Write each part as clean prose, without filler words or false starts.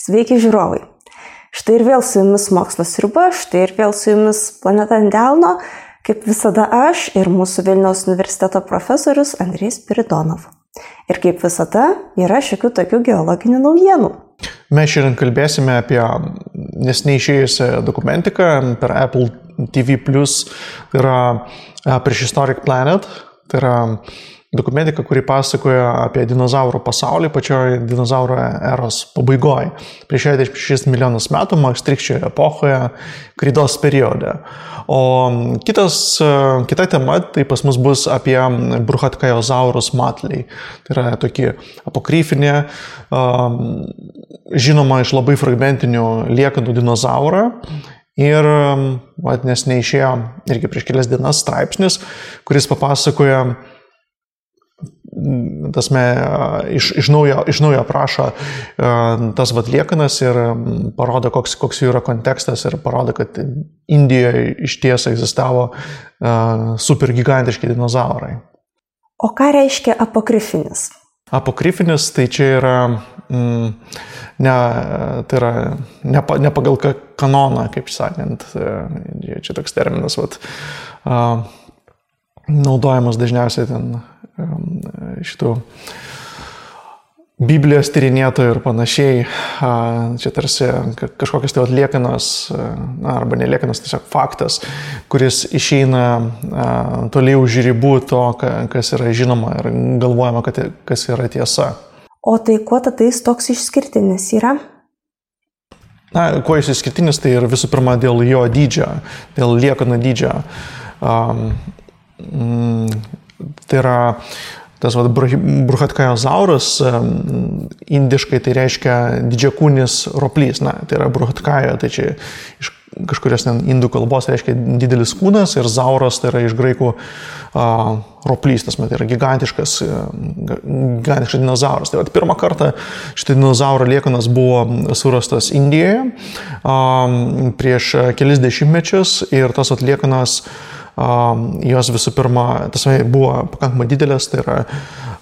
Sveiki žiūrovai. Štai ir vėl su jumis Mokslo sriuba, štai ir vėl su jumis Planeta ant delno, kaip visada aš ir mūsų Vilniaus universiteto profesorius Andrejus Spiridonov. Ir kaip visada yra šiokių tokių geologinių naujienų. Mes šiandien kalbėsime apie neseniai išėjusią dokumentiką per Apple TV+, tai yra Prehistoric Planet, tai yra dokumentika, kuri pasakoja apie dinozaurų pasaulį pačioje dinozaurų eros pabaigoje. Prieš 66 milijonus metų, Maastrichčio epochoje, kreidos periode. O kita tema, tai pas mus bus apie Bruchatkaizosaurus matliai. Tai yra tokie apokryfinė, žinoma iš labai fragmentinių liekanų dinozaurą. Ir neseniai išėjo irgi prieš kelias dienas straipsnis, kuris papasakoja iš naujo aprašo tas liekanas ir parodo, koks jų yra kontekstas ir parodo, kad Indijoje iš tiesų egzistavo supergigantiški dinozaurai. O ką reiškia apokrifinis? Apokrifinis tai čia yra ne pagal kanoną, kaip sakant, čia toks terminas, naudojamas dažniausiai ten šitų Biblijos tyrinėtojų ir panašiai. Čia tarsi kažkokios tai liekanos, arba neliekanos, tiesiog faktas, kuris išeina toliau už ribų to, kas yra žinoma ir galvojama, kas yra tiesa. O tai kuo tada jis toks išskirtinis yra? Kuo jis išskirtinis, tai ir visų pirma dėl jo dydžio, dėl liekanų dydžio. Tai yra tas Bruchatkaizosaurus, indiškai tai reiškia didžiakūnis roplys. Tai yra Bruchatkaio, tai čia iš kažkurios indų kalbos reiškia didelis kūnas ir zauras tai yra iš graikų roplys, tai yra gigantiškas dinozauras. Tai pirmą kartą šitą dinozauro liekanas buvo surastas Indijoje prieš kelis dešimtmečius ir tas liekanas jos visų pirma, buvo pakankamai didelės, tai yra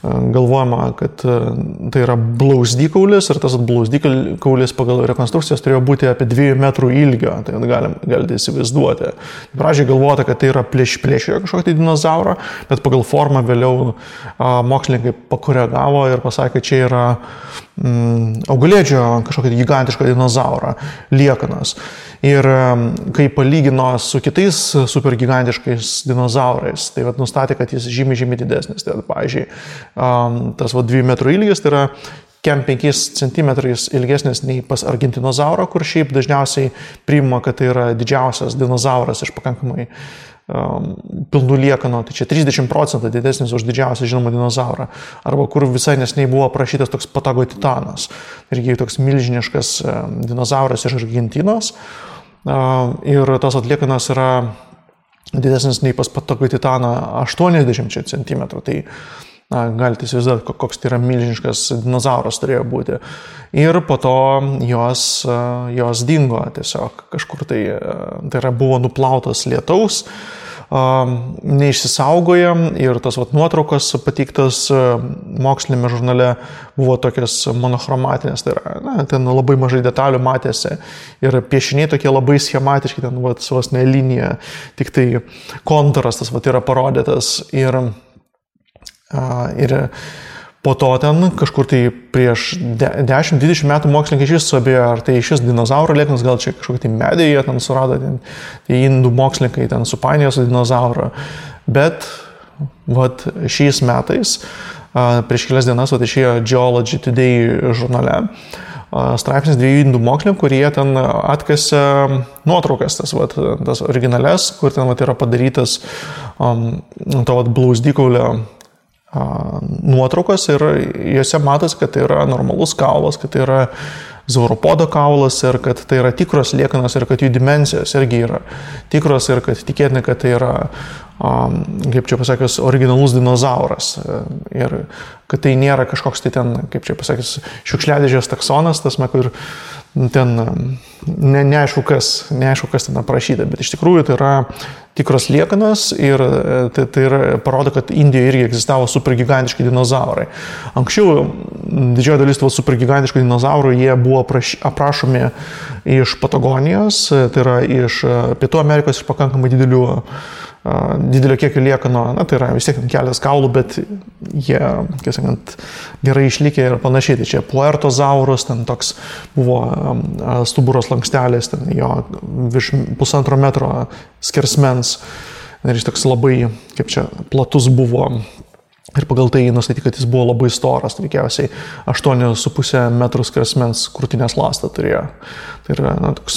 galvojama, kad tai yra blauzdikaulis ir tas blauzdikaulis pagal rekonstrukcijas turėjo būti apie 2 metrų ilgio, tai galite įsivaizduoti. Pradžiai galvota, kad tai yra plėšriojo kažkokį dinozaurą, bet pagal formą vėliau mokslininkai pakoregavo ir pasakė, kad čia yra augalėdžio kažkokį gigantišką dinozaurą liekanas. Ir kai palygino su kitais supergigantiškais dinozaurais, tai nustatė, kad jis žymiai didesnis. Tai pavyzdžiui, tas 2 metrų ilgis tai yra 5 centimetrais ilgesnis nei pas argentinozaurą, kur šiaip dažniausiai priima, kad tai yra didžiausias dinozauras iš pakankamai pilnų liekanų, tai čia 30% didesnis už didžiausią žinomą dinozaurą. Arba kur visai neseniai buvo aprašytas toks Patagotitanas, irgi toks milžiniškas dinozauras iš Argentinos. Ir tas atliekanas yra didesnis nei pas Patagotitaną 80 cm. Tai galite įsivaizduoti, koks tai yra milžiniškas dinozauras turėjo būti. Ir po to jos dingo tiesiog kažkur tai yra buvo nuplautas lietaus, neišsisaugoja ir tas nuotraukos pateiktas mokslinėme žurnale buvo tokias monochromatinės, tai yra, ten labai mažai detalių matėsi ir piešiniai tokie labai schematiški, ten vos ne linija, tik tai kontūras tas yra parodytas ir po to ten kažkur tai prieš 10-20 metų mokslininkai iš viso abėjo, ar tai šis dinozauro liekanas, gal čia kažkokį tai medį jie ten surado, tai indų mokslininkai ten supainiojo su dinozauro. Bet šiais metais, prieš kelias dienas, išėjo Geology Today žurnale straipsnis 2 indų mokslininkų, kurie ten atkasė nuotraukas, tas originales, kur ten yra padarytas to blauzdikaulio nuotraukos ir juose matosi, kad tai yra normalus kaulas, kad tai yra zauropodo kaulas ir kad tai yra tikros liekanos ir kad jų dimensijos irgi yra tikros ir kad tikėtina, kad tai yra, kaip čia pasakius, originalus dinozauras ir kad tai nėra kažkoks tai ten, kaip čia pasakius, šiukšliadėžės taksonas, kur ten neaišku, kas ten aprašyta, bet iš tikrųjų tai yra tikros liekanos ir tai parodo, kad Indijoje irgi egzistavo supergigantiški dinozaurai. Anksčiau didžioji dalis tų supergigantiškų dinozaurų jie buvo aprašomi iš Patagonijos, tai yra iš Pietų Amerikos, iš pakankamai didelio kiekio liekano, tai yra vis tiek kelias kaulų, bet jie, kaip sakant, gerai išlikę ir panašiai. Tai čia Puertozaurus, ten toks buvo stuburos lankstelis, ten jo virš 1,5 metro skersmens ir jis toks labai, kaip čia, platus buvo. Ir pagal tai nustatyti, kad jis buvo labai storas, veikiausiai 8,5 metrų skersmens krūtinės ląstą turėjo. Tai yra toks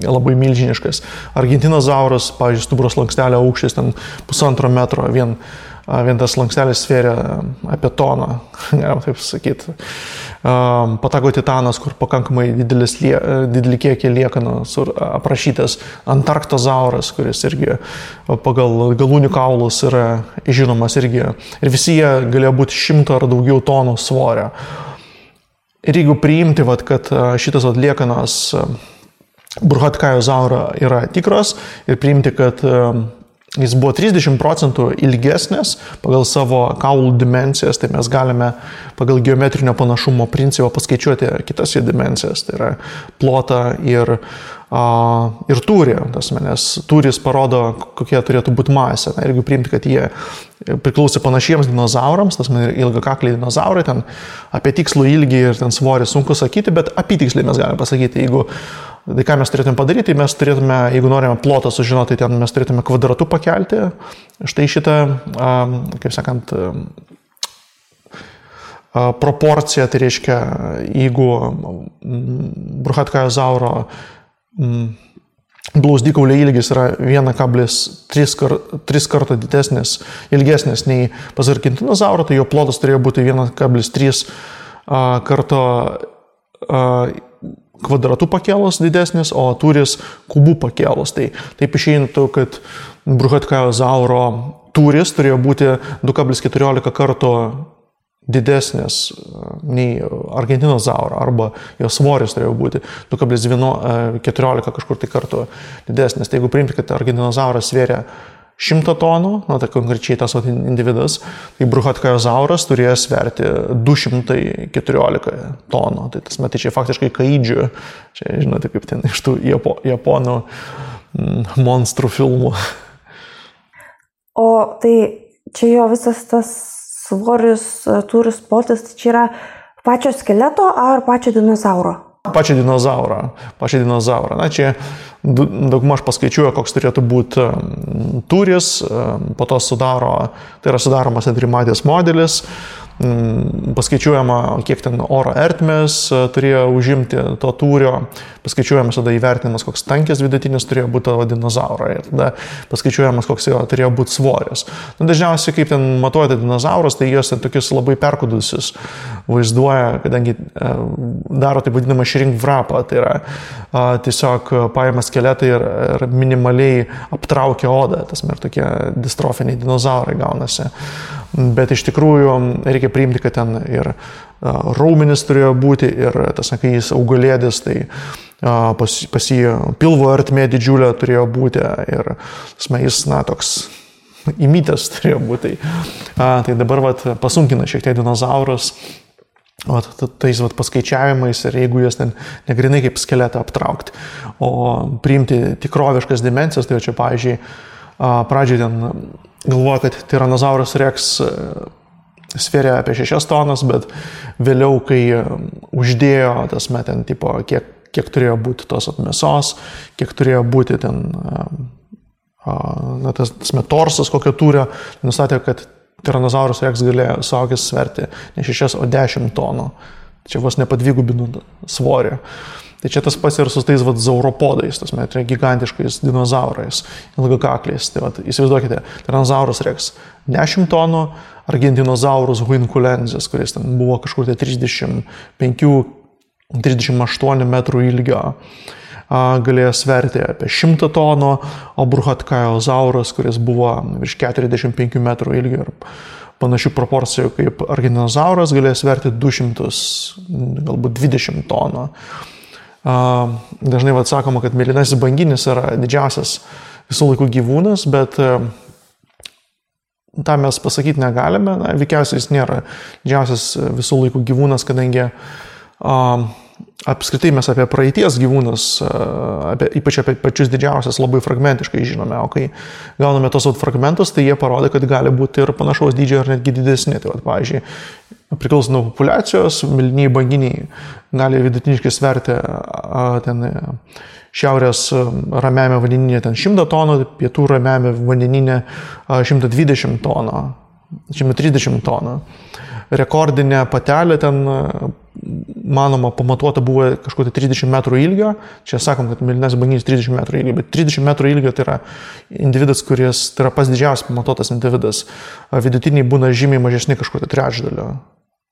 labai milžiniškas. Argentinozaurus, pavyzdžiui, stuburos lankstelio aukštis ten 1,5 metro, vien tas lankstelis svėrė apie toną, galima taip sakyti. Patagotitanas, kur pakankamai didelį kiekį liekanų aprašytas. Antarktozauras, kuris irgi pagal galūnių kaulus yra žinomas irgi. Ir visi jie galėjo būti 100 ar daugiau tonų svorio. Ir jeigu priimti, kad šitas liekanos Burhatkajozauro yra tikros ir priimti, kad jis buvo 30% ilgesnis pagal savo kaulų dimensijas, tai mes galime pagal geometrinio panašumo principą paskaičiuoti kitas jų dimensijas, tai yra plotą ir tūrį, nes tūris parodo, kokie turėtų būti masė. Ir jeigu priimti, kad jie priklausė panašiems dinozaurams, tas ilgakakliai dinozaurai, ten apie tikslų ilgį ir ten svorį sunku sakyti, bet apytiksliai mes galime pasakyti, tai ką mes turėtume padaryti, mes turėtume, jeigu norime plotą sužinoti, ten mes turėtume kvadratu pakelti. Štai šitą, kaip sakant, proporciją, tai reiškia, jeigu Burhatkajozauro blauzdikaulio ilgis yra 1,3 karto ilgesnis nei pas Argentinozauro, tai jo plotas turėjo būti 1,3 karto kvadratų pakėlus didesnis, o tūris kubų pakėlus. Tai taip išeintų, kad Burhatkajozauro tūris turėjo būti 2,14 karto didesnis nei Argentinozauro, arba jo svoris turėjo būti 2,14 kažkur tai kartų didesnis. Tai jeigu priimti, kad Argentinozauras svėrė 100 tonų, tai konkrečiai tas individas, tai Burhatkajozauras turėjo sverti 214 tonų. Tai tas metai čia faktiškai kaidžių, čia žinote, kaip ten iš tų japonų monstrų filmų. O tai čia jo visas tas svoris, tūris, plotis, tai čia yra pačio skeleto ar pačio dinozauro? Pačio dinozauro. Na, čia daugmaž paskaičiuoja, koks turėtų būti tūris, po to tai yra sudaromas trimatės modelis, paskaičiuojama, kiek ten oro ertmės turėjo užimti to tūrio, paskaičiuojamas tada įvertinimas, koks tankis vidutinis turėjo būti tavo dinozauro ir tada paskaičiuojamas, koks jo turėjo būti svoris. Dažniausiai, kaip ten matuojate dinozaurus, tai jos ten tokius labai perkudusius vaizduoja, kadangi daro taip vadinamą shrink wrapą, tai yra tiesiog paima skeletą ir minimaliai aptraukia odą, tas ir tokie distrofiniai dinozaurai gaunasi. Bet iš tikrųjų reikia priimti, kad ten ir raumenis turėjo būti ir tas, kai jis augalėdis, tai pas jį pilvo ertmė didžiulė turėjo būti ir jis, toks įmytas turėjo būti. Tai dabar pasunkina šiek tiek dinozaurus tais paskaičiavimais ir jeigu jas ten negrinai kaip skeletą aptraukti, o priimti tikroviškas dimensijas, tai čia, pavyzdžiui, pradžiai ten galvoja, kad Tyrannosaurus Rex svėrė apie 6 tonas, bet vėliau, kai uždėjo tas ten, tipo, kiek turėjo būti tos mėsos, kiek turėjo būti ten tas torsas, kokio tūrio, nustatė, kad Tyrannosaurus Rex galėjo suaugęs sverti ne 6, o 10 tonų. Čia vos nepadvigubinų svorį. Tai čia tas pats ir su tais zauropodais, gigantiškais dinozaurais, ilgakakliais. Tai įsivaizduokite, Tyrannosaurus Rex 10 tonų, Argentinozaurus huinculensis, kuris ten buvo kažkur 35-38 metrų ilgio, galėjo sverti apie 100 tonų, o Burhatkajozaurus, kuris buvo virš 45 metrų ilgio ir panašių proporcijų kaip Argentinozauras, galėjo sverti 200, galbūt 20 tonų. Dažnai sakoma, kad mėlynasis banginis yra didžiausias visų laikų gyvūnas, bet tą mes pasakyti negalime. Veikiausiai jis nėra didžiausias visų laikų gyvūnas, kadangi apskritai mes apie praeities gyvūnus, ypač apie pačius didžiausias, labai fragmentiškai žinome, o kai gauname tos fragmentus, tai jie parodo, kad gali būti ir panašaus dydžio ar netgi didesni. Tai pavyzdžiui, priklausomai nuo populiacijos, mėlynieji banginiai gali vidutiniškai sverti ten šiaurės ramiame vandenyne 100 tonų, pietų ramiame vandenyne 120 tonų, 130 tonų. Rekordinė patelė ten, manoma, pamatuota buvo kažkur 30 metrų ilgio. Čia sakom, kad mėlynasis banginis 30 metrų ilgio, bet 30 metrų ilgio tai yra individas, kuris tai yra pats didžiausias pamatuotas individas. Vidutiniai būna žymiai mažesni kažkur trečdalio.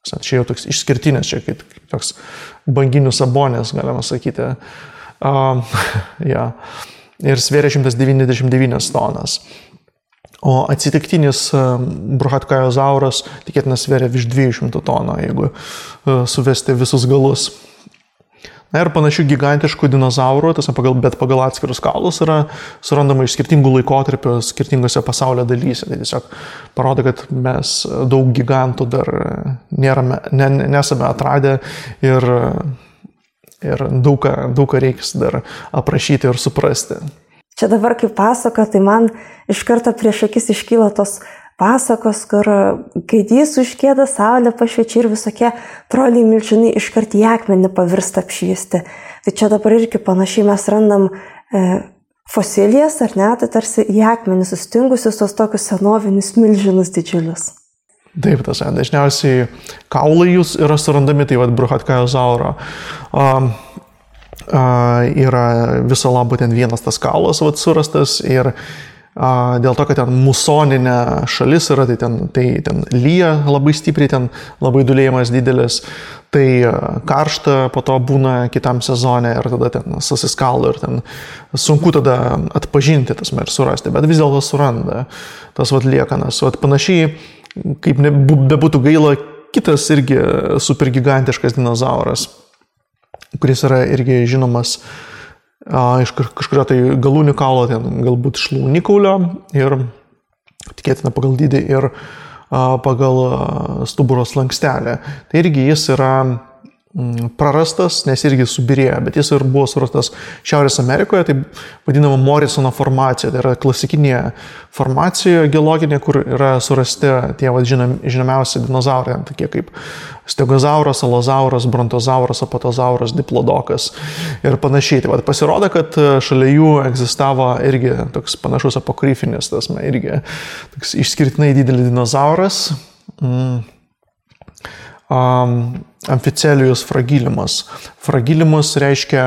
Čia jau toks išskirtinis, čia kaip toks banginių sabonės, galima sakyti. Ir svėrė 199 tonas. O atsitiktinis bruchatkajozauras tikėtina svėrė virš 200 tonų, jeigu suvesti visus galus. Na ir panašių gigantiškų dinozaurų, bet pagal atskirus kaulus yra surandama iš skirtingų laikotarpių, skirtingose pasaulio dalyse. Tai tiesiog parodo, kad mes daug gigantų dar nesame atradę ir daug ką reiks dar aprašyti ir suprasti. Čia dabar kaip pasaka, tai man iš karto prieš akis iškyla tos pasakos, kur gaidys užkėda, saulė pašviečia ir visokie troliai milžinai iškart į akmenį pavirsta apšviesti. Tai čia dabar irgi panašiai mes randam fosilijas, ar ne, tai tarsi į akmenį sustingusius tos tokius senovinius milžinus didžiulius. Taip, dažniausiai kaulai jūs yra surandami, tai bruchatkajozauro. Yra viso labo ten vienas tas kaulas surastas ir dėl to, kad ten musoninė šalis yra, tai ten lyja labai stipriai, ten labai dulėjimas didelis, tai karšta po to būna kitam sezone ir tada ten susiskalo ir ten sunku tada atpažinti tas ir surasti, bet vis dėlto suranda tas liekanas. Panašiai, kaip bebūtų gaila, kitas irgi supergigantiškas dinozauras, kuris yra irgi žinomas iš kažkurio tai galūnių kaulo, ten galbūt šlaunikaulio ir tikėtina pagal dydį ir pagal stuburo slankstelę. Tai irgi jis yra prarastas, nes irgi subirėjo, bet jis ir buvo surastas Šiaurės Amerikoje, tai vadinama Morisono formacija, tai yra klasikinė formacija geologinė, kur yra surasti tie žinomiausi dinozaurai, tokie kaip stegozauras, alozauras, brontozauras, apatozauras, diplodokas ir panašiai. Tai pasirodo, kad šalia jų egzistavo irgi toks panašus apokrifinis, irgi toks išskirtinai didelis dinozauras, Amficelijus fragilimus. Fragilimus reiškia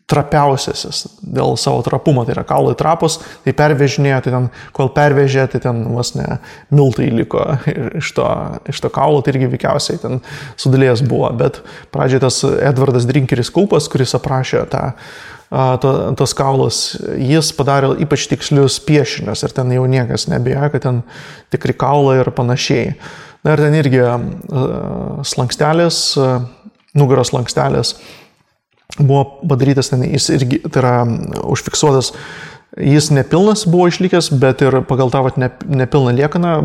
trapiausiasis dėl savo trapumo, tai yra kaulai trapus, tai pervežinėjo, tai ten, kol pervežė, tai ten vos ne miltai liko iš to kaulo, tai irgi veikiausiai ten sudėlėjęs buvo, bet pradžiai tas Edvardas Drinkeris Kulpas, kuris aprašė tos kaulus, jis padarė ypač tikslius piešinius ir ten jau niekas nebėjo, kad ten tikri kaulai ir panašiai. Na ir ten irgi slankstelės, nugaros slankstelės buvo padarytas, ten jis irgi, tai yra užfiksuotas, jis nepilnas buvo išlikęs, bet ir pagal tą nepilną liekaną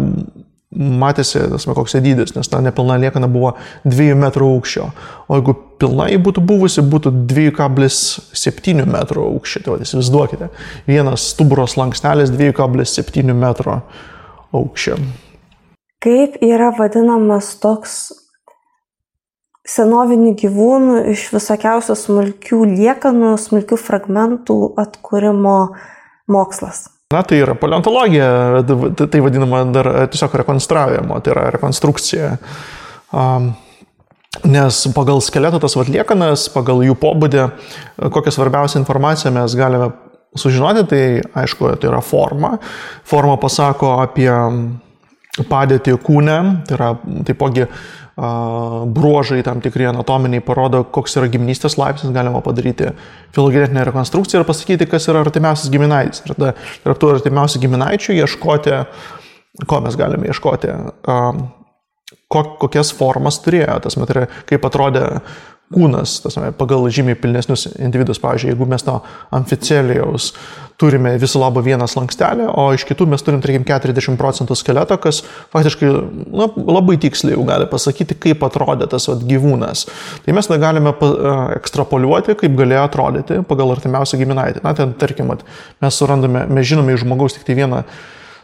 matėsi, koks dydis, nes ta nepilna liekana buvo 2 metrų aukščio, o jeigu pilnai būtų buvusi, būtų 2,7 metrų aukščio, tai įsivaizduokite, vienas stuburo slankstelis 2,7 metro aukščio. Kaip yra vadinamas toks senovinių gyvūnų iš visokiausių smulkių liekanų, smulkių fragmentų atkūrimo mokslas? Na, tai yra paleontologija, tai vadinama dar tiesiog rekonstravimo, tai yra rekonstrukcija. Nes pagal skeleto tas liekanas, pagal jų pobūdį, kokią svarbiausią informaciją mes galime sužinoti, tai aišku, tai yra forma. Forma pasako apie padėtį kūne, tai yra taipogi bruožai tam tikri anatominiai parodo, koks yra giminystės laipsnis, galima padaryti filogenetinę rekonstrukciją ir pasakyti, kas yra artimiausias giminaitis. Ir tarp tų artimiausių giminaičių ieškoti, ko mes galime ieškoti, kokias formas turėjo, tas kaip atrodė kūnas, pagal žymiai pilnesnius individus. Pavyzdžiui, jeigu mes nuo amficelijaus turime viso labo vieną slankstelį, o iš kitų mes turim, tarkim, 40% skeleto, kas faktiškai labai tiksliai jau gali pasakyti, kaip atrodė tas gyvūnas. Tai mes galime ekstrapoliuoti, kaip galėjo atrodyti pagal artimiausią giminaitį. Na, ten, tarkim, mes žinome iš žmogaus tik tai vieną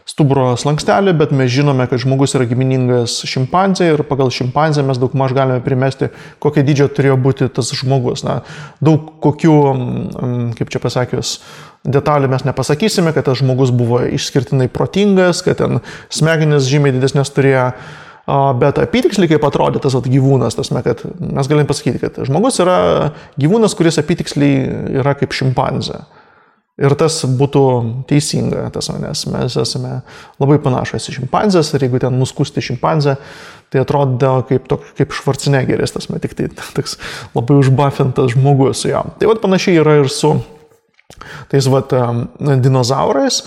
stuburo slankstelį, bet mes žinome, kad žmogus yra giminingas šimpanzė ir pagal šimpanzę mes daugmaž galime primesti, kokio dydžio turėjo būti tas žmogus. Na, daug kokių, kaip čia pasakius, detalių mes nepasakysime, kad tas žmogus buvo išskirtinai protingas, kad ten smegenis žymiai didesnės turėjo, bet apytiksliai kaip atrodė tas gyvūnas, kad mes galim pasakyti, kad žmogus yra gyvūnas, kuris apytiksliai yra kaip šimpanzė. Ir tas būtų teisinga, nes mes esame labai panašus į šimpanzės ir jeigu ten nuskusti šimpanzę, tai atrodo kaip Schwarzeneggeris, tik tai toks labai užbuffintas žmogus su jam. Tai panašiai yra ir su tais dinozaurais.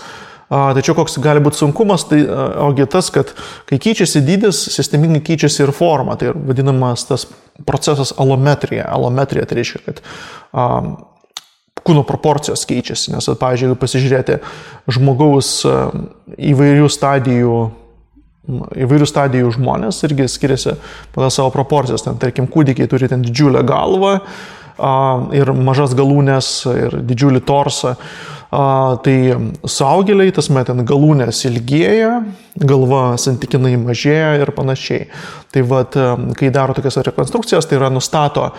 Tačiau koks gali būti sunkumas, tai ogi tas, kad kai keičiasi dydis, sistemingai keičiasi ir forma. Tai vadinamas tas procesas alometrija. Alometrija tai reiškia, kad kūno proporcijos keičiasi, nes, pavyzdžiui, jeigu pasižiūrėti žmogaus įvairių stadijų žmonės irgi skiriasi pagal savo proporcijas. Ten, tarkim, kūdikiai turi ten didžiulę galvą ir mažas galūnės ir didžiulį torsą. Tai suaugėliai, ten galūnės ilgėja, galva santykinai mažėja ir panašiai. Tai kai daro tokias rekonstrukcijas, tai yra nustato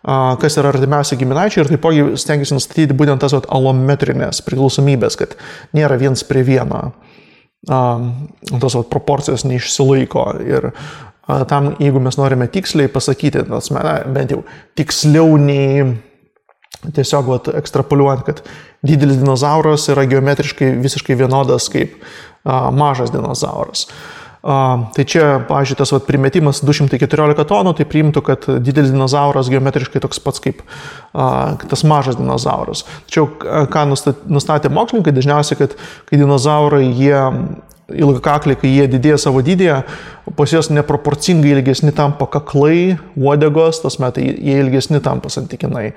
kas yra artimiausi giminaičiai ir taipogi stengiasi nustatyti būtent tas alometrinės priklausomybės, kad nėra viens prie vieno, tos proporcijos neišsilaiko ir tam, jeigu mes norime tiksliai pasakyti, bent jau tiksliau nei tiesiog ekstrapoliuojant, kad didelis dinozauras yra geometriškai visiškai vienodas kaip mažas dinozauras. Tai čia, pavyzdžiui, tas primetimas 214 tonų, tai priimtų, kad didelis dinozauras geometriškai toks pats kaip tas mažas dinozauras. Tačiau, ką nustatė mokslininkai, dažniausiai, kad kai dinozaurai, ilgakakliai, kai jie didėja savo dydėje, pas juos neproporcingai ilgesni tampa kaklai, uodegos, tai jie ilgesni tampa santykinai.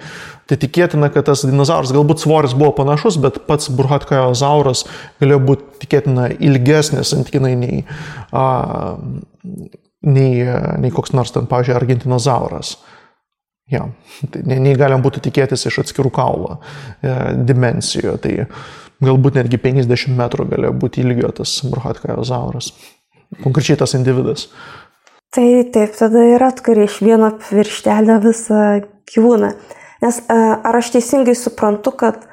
Tai tikėtina, kad tas dinozauras, galbūt svoris buvo panašus, bet pats burhatkaiozauras galėjo būti tikėtina ilgesnis santykinai nei koks nors ten, pavyzdžiui, argentinozauras. Ja, tai nei galim būtų tikėtis iš atskirų kaulo dimensijų. Tai galbūt netgi 50 metrų galėjo būti ilgio tas burhatkaiozauras. Konkrečiai tas individas. Tai taip, tada ir atkari iš vieno pirštelio visą gyvūną. Nes ar aš teisingai suprantu, kad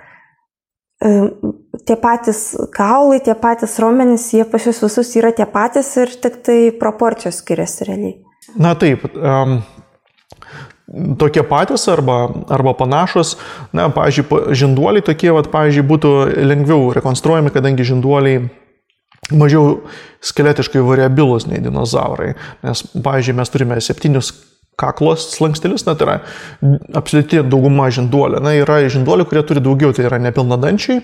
tie patys kaulai, tie patys raumenys, jie pas jūs visus yra tie patys ir tik tai proporcijos skiriasi realiai? Na taip, tokie patys arba panašus. Na, pavyzdžiui, žinduoliai tokie, pavyzdžiui, būtų lengviau rekonstruojami, kadangi žinduoliai mažiau skeletiškai variabilus nei dinozaurai. Nes, pavyzdžiui, mes turime 7 kaklos slankstelius, tai yra absoliuti dauguma žinduolių. Na, yra žinduolių, kurie turi daugiau, tai yra nepilnadančiai.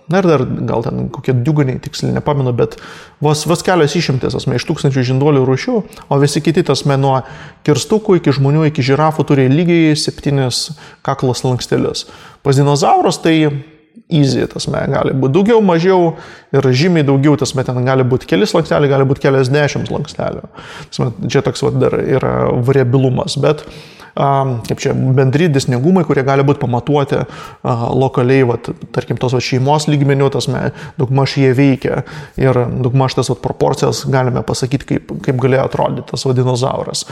Na ir dar gal ten kokie diugoniai, tiksliai nepamenu, bet vos kelios išimtis iš tūkstančių žinduolių rūšių, o visi kiti nuo kirstukų iki žmonių, iki žirafų turi lygiai 7 kaklos slankstelius. Pas dinozaurus tai easy, gali būti daugiau, mažiau ir žymiai daugiau, ten gali būti keli slanksteliai, gali būti keliasdešimt slankstelių. Čia toks dar yra variabilumas, bet kaip čia bendri dėsningumai, kurie gali būti pamatuoti lokaliai, tarkim, tos šeimos lygmenių, daugmaž jie veikia ir daugmaž tas proporcijas galime pasakyti, kaip galėjo atrodyti tas dinozauras.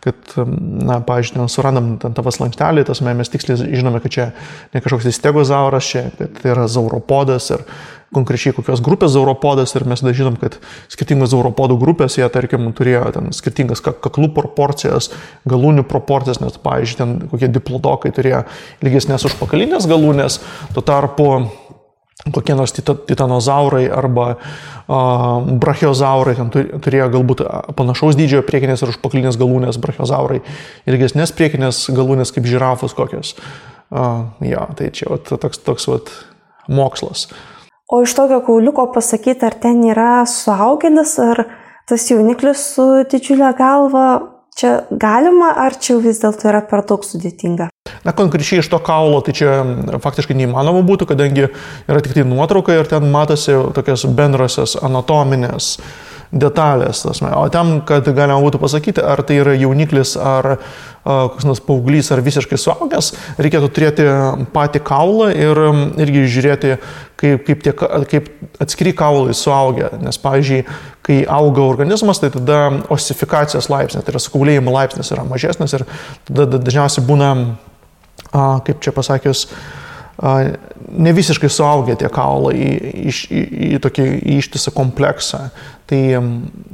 Kad, na, pavyzdžiui, surandam tavo slanktelį, mes tiksliai žinome, kad čia ne kažkoks stegozauras, čia kad tai yra zauropodas ir konkrečiai kokios grupės zauropodas ir mes žinom, kad skirtingos zauropodų grupės, jie, tarkim, turėjo ten skirtingas kaklų proporcijas, galūnių proporcijas, nes, pavyzdžiui, ten kokie diplodokai turėjo ilgesnės užpakalinės galūnės, tuo tarpu kokie nors titanozaurai arba brachiozaurai ten turėjo galbūt panašaus dydžio priekinės ir užpakalinės galūnės, brachiozaurai ilgesnės priekinės galūnės kaip žirafos kokios. Ja, tai čia toks mokslas. O iš tokio kauliuko pasakyti, ar ten yra suaugėlis, ar tas jauniklis su didžiulė galva, čia galima, ar čia vis dėlto yra per daug sudėtinga? Na, konkrečiai iš to kaulo, tai čia faktiškai neįmanoma būtų, kadangi yra tik tai nuotrauka ir ten matosi tokios bendrosios anatominės detalės. O tam, kad galima būtų pasakyti, ar tai yra jauniklis, ar koks nors paauglys, ar visiškai suaugęs, reikėtų turėti patį kaulą ir irgi žiūrėti, kaip atskiri kaulai suaugia. Nes, pavyzdžiui, kai auga organizmas, tai tada osifikacijos laipsnis, tai yra sukaulėjimo laipsnis yra mažesnis ir tada dažniausiai būna, kaip čia pasakius, ne visiškai suaugę tie kaulai į tokį ištisą kompleksą. Tai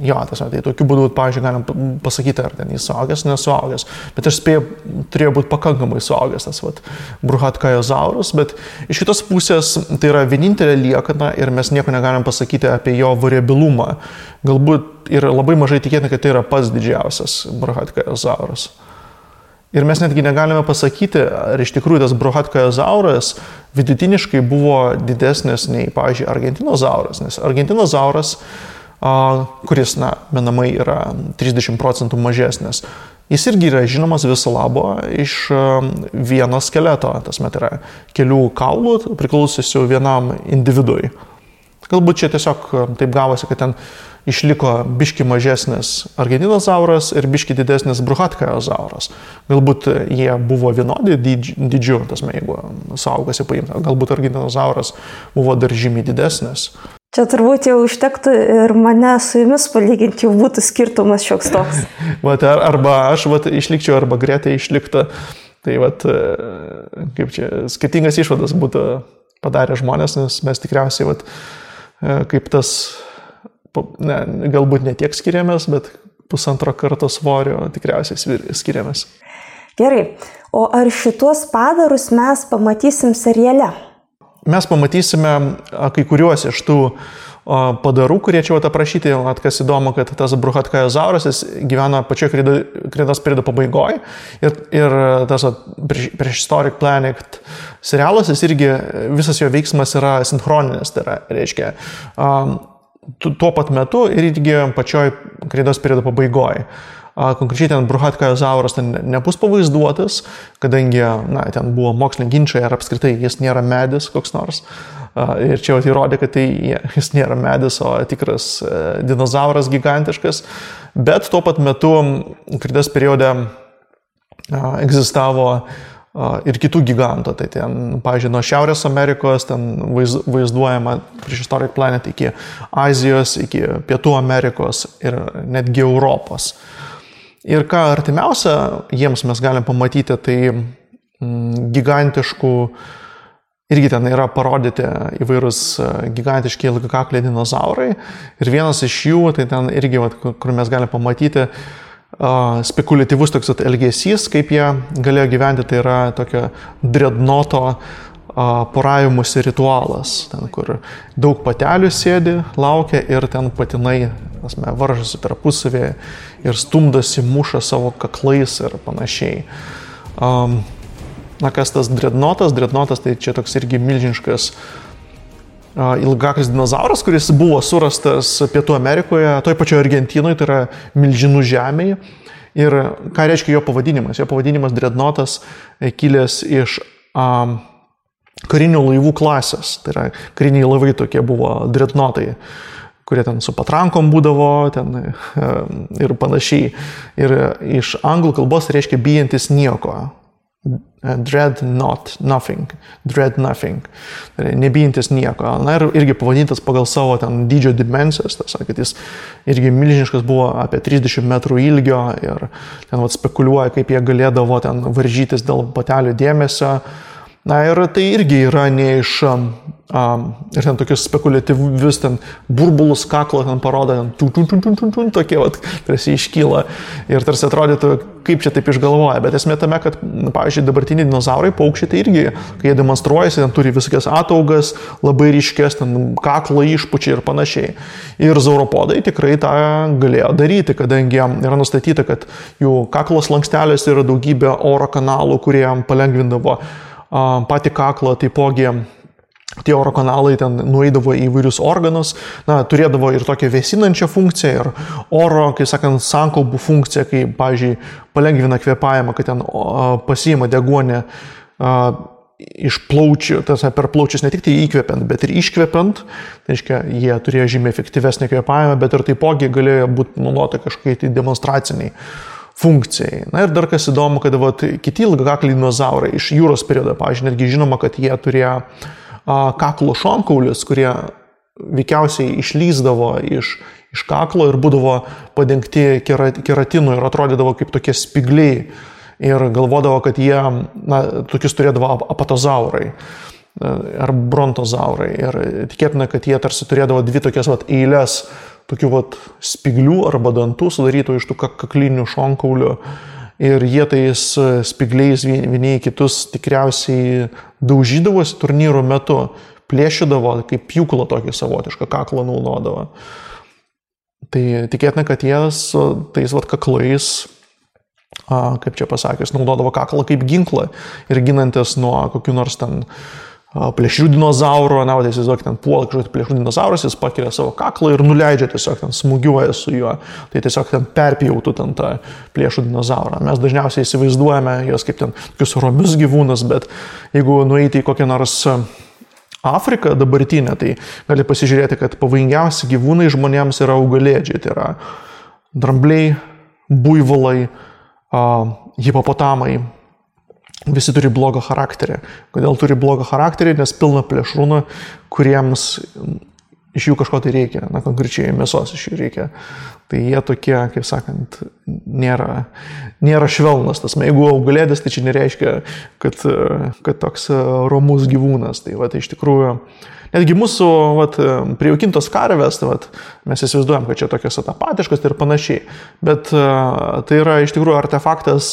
jo, tai tokiu būdu, pavyzdžiui, galim pasakyti, ar ten jis suaugęs, nesuaugęs. Bet aš spėjau, turėjo būti pakankamai suaugęs tas Bruhatkaizosaurus, bet iš kitos pusės tai yra vienintelė liekana ir mes nieko negalim pasakyti apie jo variabilumą. Galbūt ir labai mažai tikėtina, kad tai yra pats didžiausias Bruhatkaizosaurus. Ir mes netgi negalime pasakyti, ar iš tikrųjų tas Bruhatkaizauras vidutiniškai buvo didesnis nei, pavyzdžiui, Argentinozauras. Nes Argentinozauras, kuris, menamai yra 30% mažesnis, jis irgi yra žinomas viso labo iš vieno skeleto. Tas met yra kelių kaulų priklausysių vienam individui. Galbūt čia tiesiog taip gavosi, kad ten išliko biški mažesnis Argentinozauras ir biški didesnis Bruhatkaizosaurus. Galbūt jie buvo vienodi dydžiu, jeigu suaugasi paimta. Galbūt Argentinozauras buvo dar žymiai didesnis. Čia turbūt jau užtektų ir mane su jumis palyginti, jau būtų skirtumas šioks toks. Arba aš išlikčiau, arba Greta išlikta. Tai kaip čia, skirtingas išvadas būtų padarę žmonės, nes mes tikriausiai kaip tas galbūt ne tiek skiriamės, bet 1,5 karto svorio tikriausiai skiriamės. Gerai, o ar šitos padarus mes pamatysim seriale? Mes pamatysime kai kuriuos iš tų padarų, kurie čia aprašyti, kas įdomu, kad tas Bruhatkaizosaurus gyvena pačioje kredos periodo pabaigoje ir tas Prehistoric Planet serialas, jis irgi visas jo veiksmas yra sinchroninis, tai reiškia tuo pat metu ir irgi pačioj kredos periodo pabaigoje. Konkrečiai ten Bruhatkaizosaurus nebus pavaizduotas, kadangi ten buvo moksliniai ginčai, ar apskritai jis nėra medis koks nors. Ir čia įrodė, kad jis nėra medis, o tikras dinozauras gigantiškas. Bet tuo pat metu kredos periode egzistavo ir kitų gigantų. Tai ten, pavyzdžiui, nuo Šiaurės Amerikos ten vaizduojama Prehistoric Planet iki Azijos, iki Pietų Amerikos ir netgi Europos. Ir ką artimiausia jiems mes galim pamatyti, tai gigantiškų, irgi ten yra parodyti įvairūs gigantiški ilgakakliai dinozaurai. Ir vienas iš jų, tai ten irgi, kur mes galim pamatyti, spekuliatyvus toks elgesys, kaip jie galėjo gyventi, tai yra tokio dreadnoto poravimuose ritualas, ten, kur daug patelių sėdi, laukia ir ten patinai varžosi tarpusavėje ir stumdosi, muša savo kaklais ir panašiai. Kas tas dreadnotas? Dreadnotas tai čia toks irgi milžiniškas ilgakaklis dinozauras, kuris buvo surastas Pietų Amerikoje, toj pačioje Argentinoje, tai yra milžinų žemėje. Ir ką reiškia jo pavadinimas? Jo pavadinimas dreadnotas kilęs iš karinių laivų klasės. Tai yra kariniai laivai tokie buvo dreadnotai, kurie ten su patrankom būdavo ten, ir panašiai. Ir iš anglų kalbos reiškia bijantis nieko. Dread nothing. Nebijantis nieko. Ir irgi pavadintas pagal savo ten dydžio dimensijas, kad jis irgi milžiniškas buvo apie 30 metrų ilgio ir ten spekuliuoja, kaip jie galėdavo ten varžytis dėl patelių dėmesio. Ir tai irgi yra ne iš ir ten tokius spekuliatyvius ten burbulus kaklo ten parodo, tokie tarsi iškyla ir tarsi atrodytų, kaip čia taip išgalvoja. Bet esmė tame, kad, pavyzdžiui, dabartiniai dinozaurai, paukščiai, tai irgi, kai jie demonstruojasi, ten turi visokias ataugas, labai ryškės, ten kaklo išpučiai ir panašiai. Ir zauropodai tikrai tą galėjo daryti, kadangi yra nustatyta, kad jų kaklo slanksteliuose yra daugybė oro kanalų, kurie palengvindavo patį kaklą, taipogi tie oro kanalai ten nueidavo į įvairius organus, turėdavo ir tokią vėsinančią funkciją, ir oro, kaip sakant, sankaupų funkciją, kai, pavyzdžiui, palengvina kvėpavimą, kad ten pasiima deguonį iš plaučių, per plaučius ne tik tai įkvepiant, bet ir iškvepiant, tai reiškia, jie turėjo žymiai efektyvesnį kvėpavimą, bet ir taipogi galėjo būti naudota kažkokiai tai demonstraciniai funkcijai. Ir dar kas įdomu, kad kiti ilgakakliai dinozaurai iš jūros periodo, pavyzdžiui, netgi žinoma, kad jie turėjo kaklo šonkaulius, kurie veikiausiai išlyzdavo iš kaklo ir būdavo padengti keratinu ir atrodydavo kaip tokie spigliai. Ir galvodavo, kad jie, tokius turėdavo apatozaurai ar brontozaurai. Ir tikėtina, kad jie tarsi turėdavo dvi tokias eilės tokių spiglių arba dantų sudarytų iš tų kaklinių šonkaulių. Ir jie tais spigliais vieni kitus tikriausiai daužydavosi turnyrų metu, plėšydavo, kaip pjūklą tokį savotišką kaklą naudodavo. Tai tikėtina, kad jie tais kaklais, kaip čia pasakius, naudodavo kaklą kaip ginklą ir ginantis nuo kokių nors ten plėšrių dinozaurų, tai įsivaizduok, ten puola kažkokį plėšrių dinozaurus, jis pakelia savo kaklą ir nuleidžia tiesiog, ten smūgiuoja su juo, tai tiesiog ten perpjautų ten tą plėšrų dinozaurą. Mes dažniausiai įsivaizduojame jos kaip ten tokius romius gyvūnus, bet jeigu nueiti į kokią nors Afriką dabartinę, tai gali pasižiūrėti, kad pavojingiausi gyvūnai žmonėms yra augalėdžiai, tai yra drambliai, buivolai, hipopotamai. Visi turi blogą charakterį. Kodėl turi blogą charakterį? Nes pilna plėšrūnų, kuriems iš jų kažko tai reikia, konkrečiai mėsos iš jų reikia. Tai jie tokie, kaip sakant, nėra švelnas. Jeigu augalėdis, tai čia nereiškia, kad toks romus gyvūnas. Tai iš tikrųjų, netgi mūsų prijaukintos karvės, mes įsivaizduojam, kad čia tokios apatiškos ir panašiai. Bet tai yra iš tikrųjų artefaktas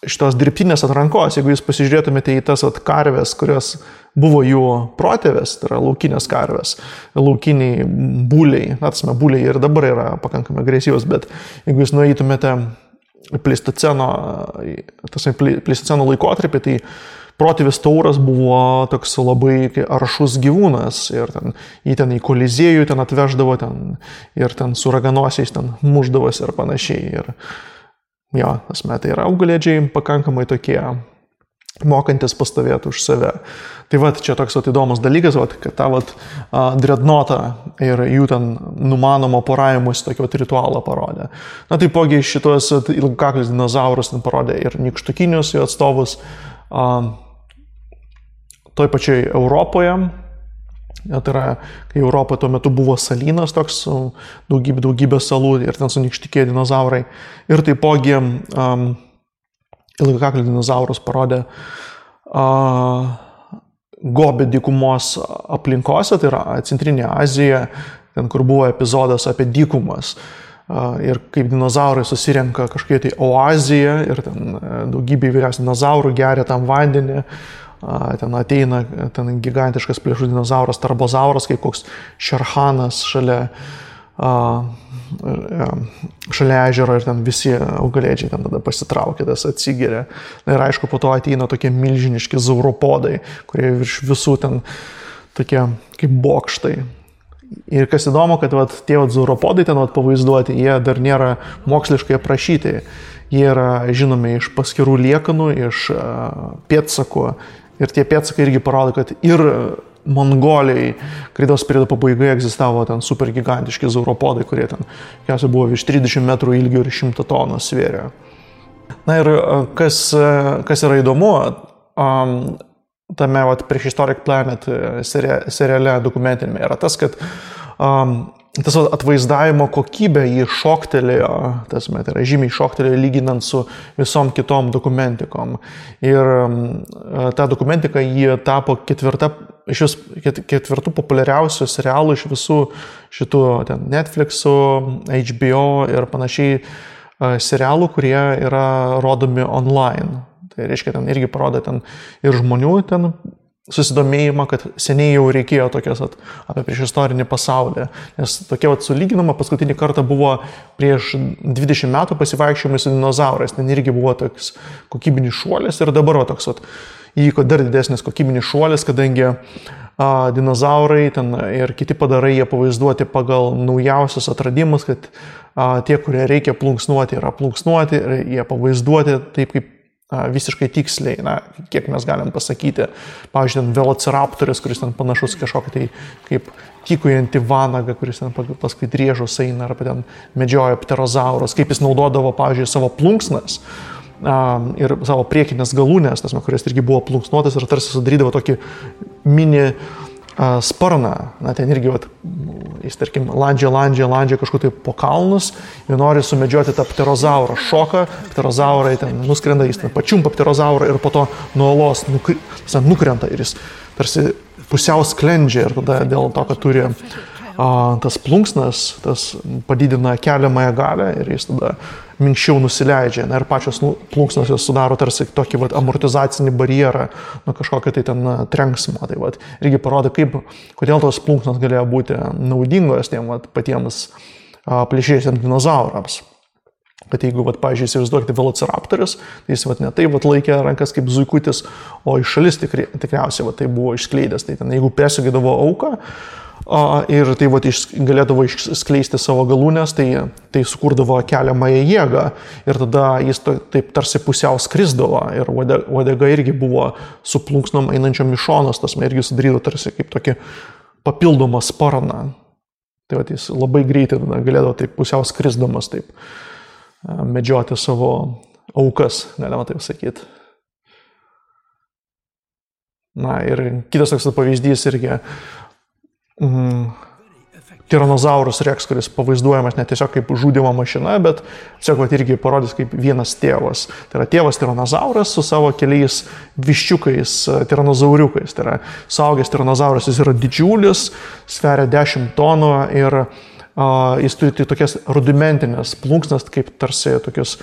šitos dirbtinės atrankos. Jeigu jūs pasižiūrėtumėte į tas karvės, kurios buvo jų protėvės, tai yra laukinės karvės, laukiniai būliai, būliai ir dabar yra pakankamai agresyvus, bet jeigu jūs nueitumėte pleistoceno laikotarpį, tai protėvis tauras buvo toks labai aršus gyvūnas ir jį ten į koliziejų ten atveždavo ir ten su raganosiais ten muždavosi ir panašiai. Ir tai yra augalėdžiai pakankamai tokie mokantis pastovėti už save. Tai čia toks įdomus dalykas, kad tą dreadnotą ir jų ten numanomo poravimus tokio ritualą parodė. Taipogi šitos ilgakaklius dinozaurus parodė ir nykštukinius jų atstovus toj pačioj Europoje. Tai yra, kai Europoje tuo metu buvo salynas toks, daugybė salų ir ten sunykštikėjo dinozaurai. Ir taipogi ilgakaklių dinozaurus parodė Gobi dykumos aplinkose, tai yra Centrinė Azija, ten kur buvo epizodas apie dykumas. Ir kaip dinozaurai susirenka kažkokie tai oaziją ir ten daugybė įvairiausių dinozaurų geria tam vandenį. Ten ateina gigantiškas plėšrus dinozauras, tarbozauras, kaip koks šerhanas šalia ežero ir ten visi augalėdžiai ten tada pasitraukia, tas atsigeria. Ir aišku, po to ateina tokie milžiniški zauropodai, kurie virš visų ten tokie kaip bokštai. Ir kas įdomu, kad tie zauropodai ten pavaizduoti, jie dar nėra moksliškai aprašyti. Jie yra žinomi iš paskirų liekanų, iš pėdsakų. Ir tie pėdsakai irgi parodo, kad ir Mongolijai kreidos periodo pabaigoje egzistavo ten super gigantiški zauropodai, kurie ten buvo virš 30 metrų ilgio ir 100 tonų svėrė. Ir kas yra įdomu, tame Prehistoric Planet seriale dokumentinėme yra tas, kad tas atvaizdavimo kokybė jį šoktelėjo, tai yra žymiai šoktelėjo lyginant su visom kitom dokumentikom. Ir ta dokumentika jį tapo ketvirtų populiariausių serialų iš visų šitų Netflix'ų, HBO ir panašiai serialų, kurie yra rodomi online. Tai reiškia, ten irgi parodo ten ir žmonių ten susidomėjimą, kad seniai jau reikėjo tokias apie priešistorinį pasaulį. Nes tokia sulyginama paskutinį kartą buvo prieš 20 metų pasivaikščiojimai su dinozaurais. Ten irgi buvo toks kokybinis šuolis ir dabar toks įvyko dar didesnis kokybinis šuolis, kadangi dinozaurai ten ir kiti padarai jie pavaizduoti pagal naujausius atradimus, kad tie, kurie reikia plunksnuoti, yra plunksnuoti ir jie pavaizduoti taip kaip visiškai tiksliai, kiek mes galim pasakyti. Pavyzdžiui, ten velociraptorius, kuris ten panašus kažkokį tai kaip tykujantį vanagą, kuris ten paskui driežus eina, arba ten medžioja pterozaurus, kaip jis naudodavo, pavyzdžiui, savo plunksnas ir savo priekinės galūnės, kuris irgi buvo plunksnuotas ir tarsi sudarydavo tokį mini sparną. Ten irgi, jis, tarkim, landžia kažkur tai po kalnus ir nori sumedžioti tą pterozaurą. Šoka, pterozaurai ten nuskrenda, jis ten pačiumpa pterozaurą ir po to nuo olos nukrenta ir jis tarsi pusiau sklendžia ir tada dėl to, kad turi tas plunksnas, tas padidina keliamąją galę ir jis tada minkščiau nusileidžia. Ir pačios plunksnos jos sudaro tarsi tokį amortizacinį barjerą nuo kažkokio tai ten trenksmo. Tai irgi parodo, kodėl tos plunksnos galėjo būti naudingos tiem patiems plėšriesiems dinozaurams. Kad jeigu, pavyzdžiui, įsivaizduokite velociraptorius, tai jis ne taip laikė rankas kaip zuikutis, o iš šalis tikriausiai tai buvo išskleidęs. Tai ten, jeigu persugėdavo auką, ir tai galėdavo išskleisti savo galūnės, tai sukurdavo keliamąją jėgą ir tada jis taip tarsi pusiau skrisdavo ir uodega irgi buvo su plunksnom einančiom iš šonos, tas irgi sudarydavo tarsi kaip tokį papildomą sparną. Tai jis labai greitai galėdavo taip pusiau skrisdamas taip medžioti savo aukas, galima taip sakyti. Ir kitas toks pavyzdys irgi Tyrannosaurus Rex, kuris pavaizduojamas ne tiesiog kaip žudymo mašina, bet tiesiog irgi parodys kaip vienas tėvas. Tai yra tėvas Tyrannosauras su savo keliais viščiukais, tiranozauriukais. Tai yra suaugęs Tyrannosauras, jis yra didžiulis, sveria 10 tonų ir jis turi tokias rudimentinės plunksnas, kaip tarsi tokius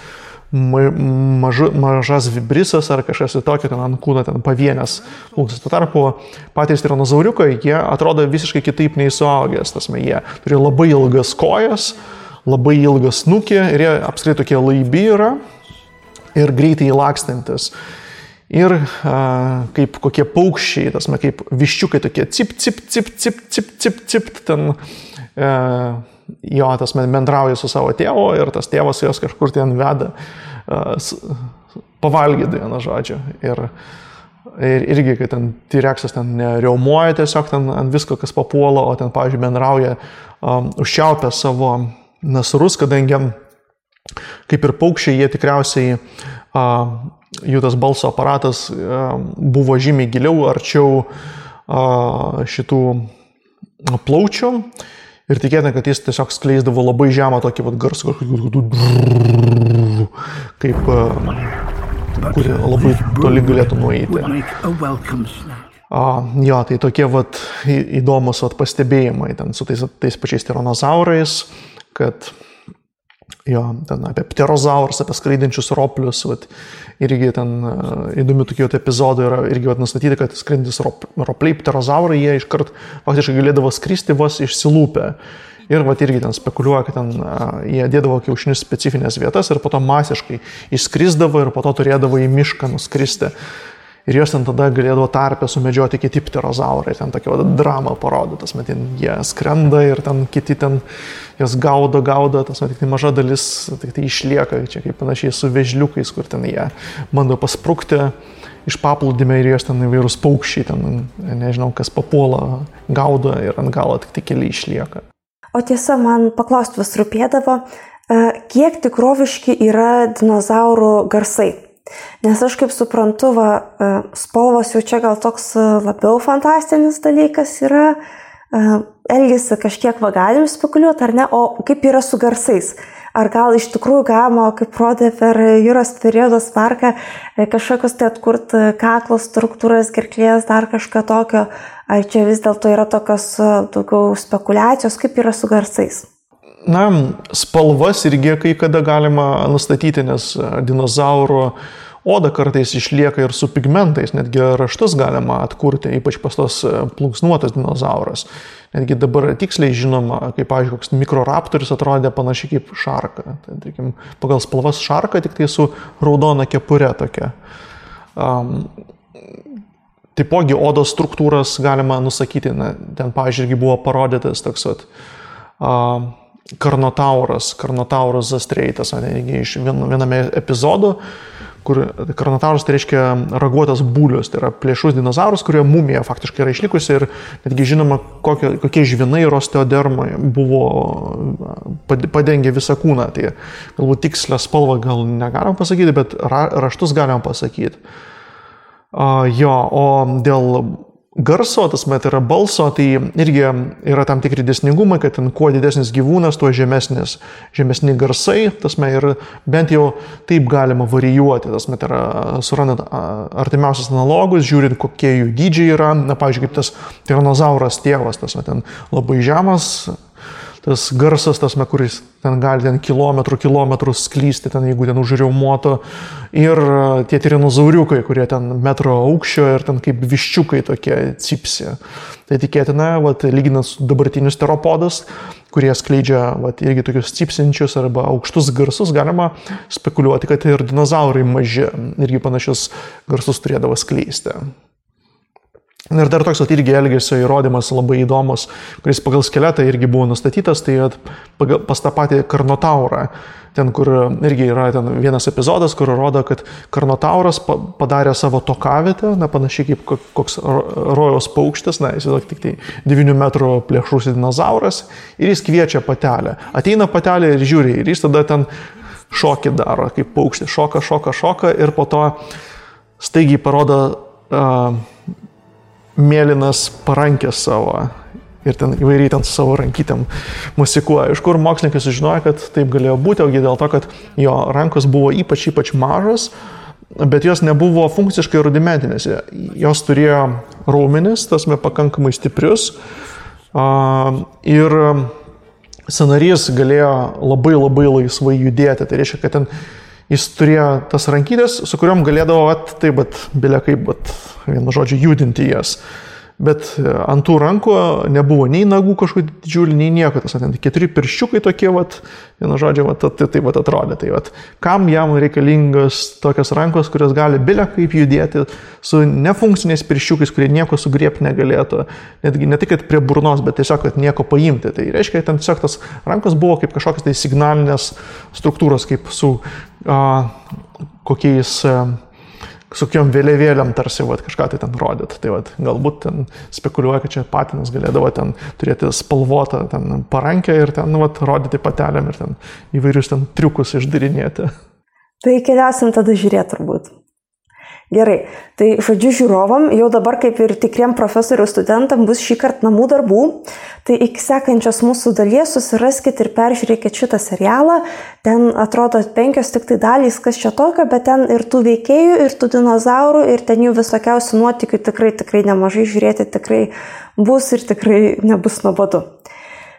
mažas vibrisas ar kažkas tokio, ten ant kūno ten pavienės plunksnas. Tuo tarpu patys tiranozauriukai, jie atrodo visiškai kitaip nei suaugęs. Jie turi labai ilgas kojas, labai ilgą snukį ir jie apskritai tokie laibi yra ir greitai lakstantis. Ir kaip kokie paukščiai, kaip viščiukai tokie cip, cip, cip, cip, cip, cip, cip, ten bendrauja su savo tėvu ir tas tėvas jos kažkur ten veda pavalgyti, vienu žodžiu. Ir irgi, kai ten T-Rexas ten riaumoja tiesiog ten ant visko, kas papuola, o ten, pavyzdžiui, bendrauja užčiaupę savo nasrus, kadangi kaip ir paukščiai, jie tikriausiai jų tas balso aparatas buvo žymiai giliau, arčiau šitų plaučių. Ir tikėtina, kad jis tiesiog skleisdavo labai žemą tokį garsą, kaip kurį labai toli galėtų nueiti. Tai tokie įdomus pastebėjimai ten su tais pačiais tiranozaurais, kad ten apie pterozaurus, apie skraidinčius roplius, irgi ten įdomių tokių epizodų yra irgi nustatyti, kad skraidintis ropliai, pterozaurai, jie iškart faktiškai galėdavo skristi vos išsilūpę. Ir irgi ten spekuliuoja, kad ten jie dėdavo kiaušinius specifinės vietas ir po to masiškai išskrisdavo ir po to turėdavo į mišką nuskristi. Ir jos ten tada galėdavo tarpę sumedžioti kiti pterozaurai, ten tokia drama parodo, jie skrenda ir ten kiti ten jos gaudo, tik tai maža dalis tik tai išlieka, čia kaip panašiai su vežliukais, kur ten jie bando pasprukti iš paplūdimio ir jos ten įvairūs paukščiai, ten nežinau, kas papuola, gaudo ir ant galo tik tai keli išlieka. O tiesa, man paklausti vis rūpėdavo, kiek tikroviški yra dinozaurų garsai? Nes aš kaip suprantu, spalvos jau čia gal toks labiau fantastinis dalykas yra, elgesi kažkiek galim spekuliuoti ar ne, o kaip yra su garsais? Ar gal iš tikrųjų galima, kaip rodė per Jūros periodos parką, kažkokios tai atkurti kaklo struktūras, gerklės, dar kažką tokio, ar čia vis dėlto yra tokios daugiau spekulacijos, kaip yra su garsais? Spalvas irgi kai kada galima nustatyti, nes dinozaurų oda kartais išlieka ir su pigmentais, netgi raštus galima atkurti, ypač pas tos plunksnuotas dinozauras. Netgi dabar tiksliai žinoma, kaip, pavyzdžiui, koks mikroraptorius atrodė panašiai kaip šarka. Tai, pagal spalvas šarka, tik tai su raudona kepure tokia. taipogi odos struktūras galima nusakyti. Ten, pavyzdžiui, irgi buvo parodytas toks Carnotauras zastreitas, iš viename epizodo, kur Carnotauras tai reiškia raguotas būlius, tai yra plėšrus dinozaurus, kurio mumija faktiškai yra išlikusi ir netgi žinoma, kokie žvinai ir osteodermai buvo padengę visą kūną. Tai galbūt tikslę spalvą gal negalim pasakyti, bet raštus galim pasakyti. O dėl garso, tai yra balso, tai irgi yra tam tikri dėsningumai, kad ten kuo didesnis gyvūnas, tuo žemesni garsai, ir bent jau taip galima varijuoti, yra surandant artimiausias analogus, žiūrint, kokie jų dydžiai yra, pavyzdžiui, kaip tas tiranozauras tėvas, ten labai žemas, tas garsas, kuris ten gali kilometrus sklysti, jeigu ten užriaumoto, ir tie tiranozauriukai, kurie ten metro aukščio ir ten kaip viščiukai tokie cipsi. Tai tikėtina, lyginant su dabartinius teropodus, kurie skleidžia irgi tokius cipsinčius arba aukštus garsus, galima spekuliuoti, kad ir dinozaurai maži irgi panašius garsus turėdavo skleisti. Ir dar toks irgi elgesio įrodymas labai įdomus, kuris pagal skeletą irgi buvo nustatytas, tai pas tą patį Carnotaurą, ten kur irgi yra ten vienas epizodas, kur rodo, kad Carnotauras padarė savo tokavietę, panašiai kaip koks rojaus paukštis, jis tik tai 9 metrų plėšrus dinozauras, ir jis kviečia patelę. Ateina patelė ir žiūri, ir jis tada ten šokį daro, kaip paukštis, šoka, ir po to staigiai parodo mėlynas parankės savo ir ten įvairiai ten su savo rankytėm musikuoja. Iš kur mokslininkai sužinojo, kad taip galėjo būti, ogi dėl to, kad jo rankos buvo ypač mažas, bet jos nebuvo funkciškai rudimentinės. Jos turėjo raumenis, pakankamai stiprius, ir sąnarys galėjo labai laisvai judėti. Tai reiškia, kad ten jis turėjo tas rankytės, su kuriuom galėdavo vienu žodžiu judinti jas. Bet ant tų rankų nebuvo nei nagų kažkokių didžiulių, nei nieko. Tas 4 pirščiukai tokie, vienu žodžiu, taip atrodė. Tai kam jam reikalingas tokios rankos, kurios gali kaip judėti su nefunkciniais pirščiukais, kurie nieko sugriebti negalėtų. Netgi ne tik prie burnos, bet tiesiog nieko paimti. Tai reiškia, kad ten tiesiog tas rankos buvo kaip kažkokios tai signalinės struktūros, kaip su kokiom vėliavėliam tarsi kažką tai ten rodyt. Tai galbūt ten spekuliuoja, kad čia patinas galėdavo ten turėti spalvotą ten parankę ir ten rodyti patelėm ir ten įvairius ten triukus išdarinėti. Tai keliausim tada žiūrėti turbūt. Gerai, tai žodžiu žiūrovam, jau dabar kaip ir tikriem profesorių studentam bus šį kartą namų darbų, tai iki sekančios mūsų dalies susiraskit ir peržiūrėkit šitą serialą, ten atrodo 5 tik tai dalys, kas čia tokio, bet ten ir tų veikėjų, ir tų dinozaurų, ir ten jų visokiausių nuotykių tikrai nemažai žiūrėti, tikrai bus ir tikrai nebus nuobodu.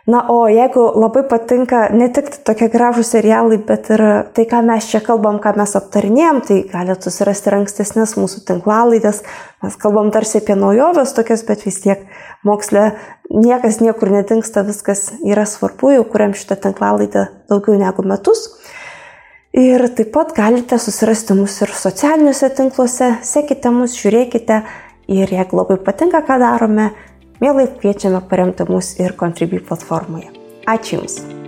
Na, o jeigu labai patinka ne tik tokie gražūs serialai, bet ir tai, ką mes čia kalbam, ką mes aptarinėjom, tai galite susirasti ankstesnės mūsų tinklalaidės. Mes kalbam tarsi apie naujoves tokias, bet vis tiek moksle niekas niekur nedingsta, viskas yra svarbu, jau kuriam šitą tinklalaidę daugiau negu metus. Ir taip pat galite susirasti mus ir socialiniuose tinkluose, sekite mus, žiūrėkite ir jeigu labai patinka, ką darome, mielai kviečiame paremti mus ir Contribui platformoje. Ačiū Jums!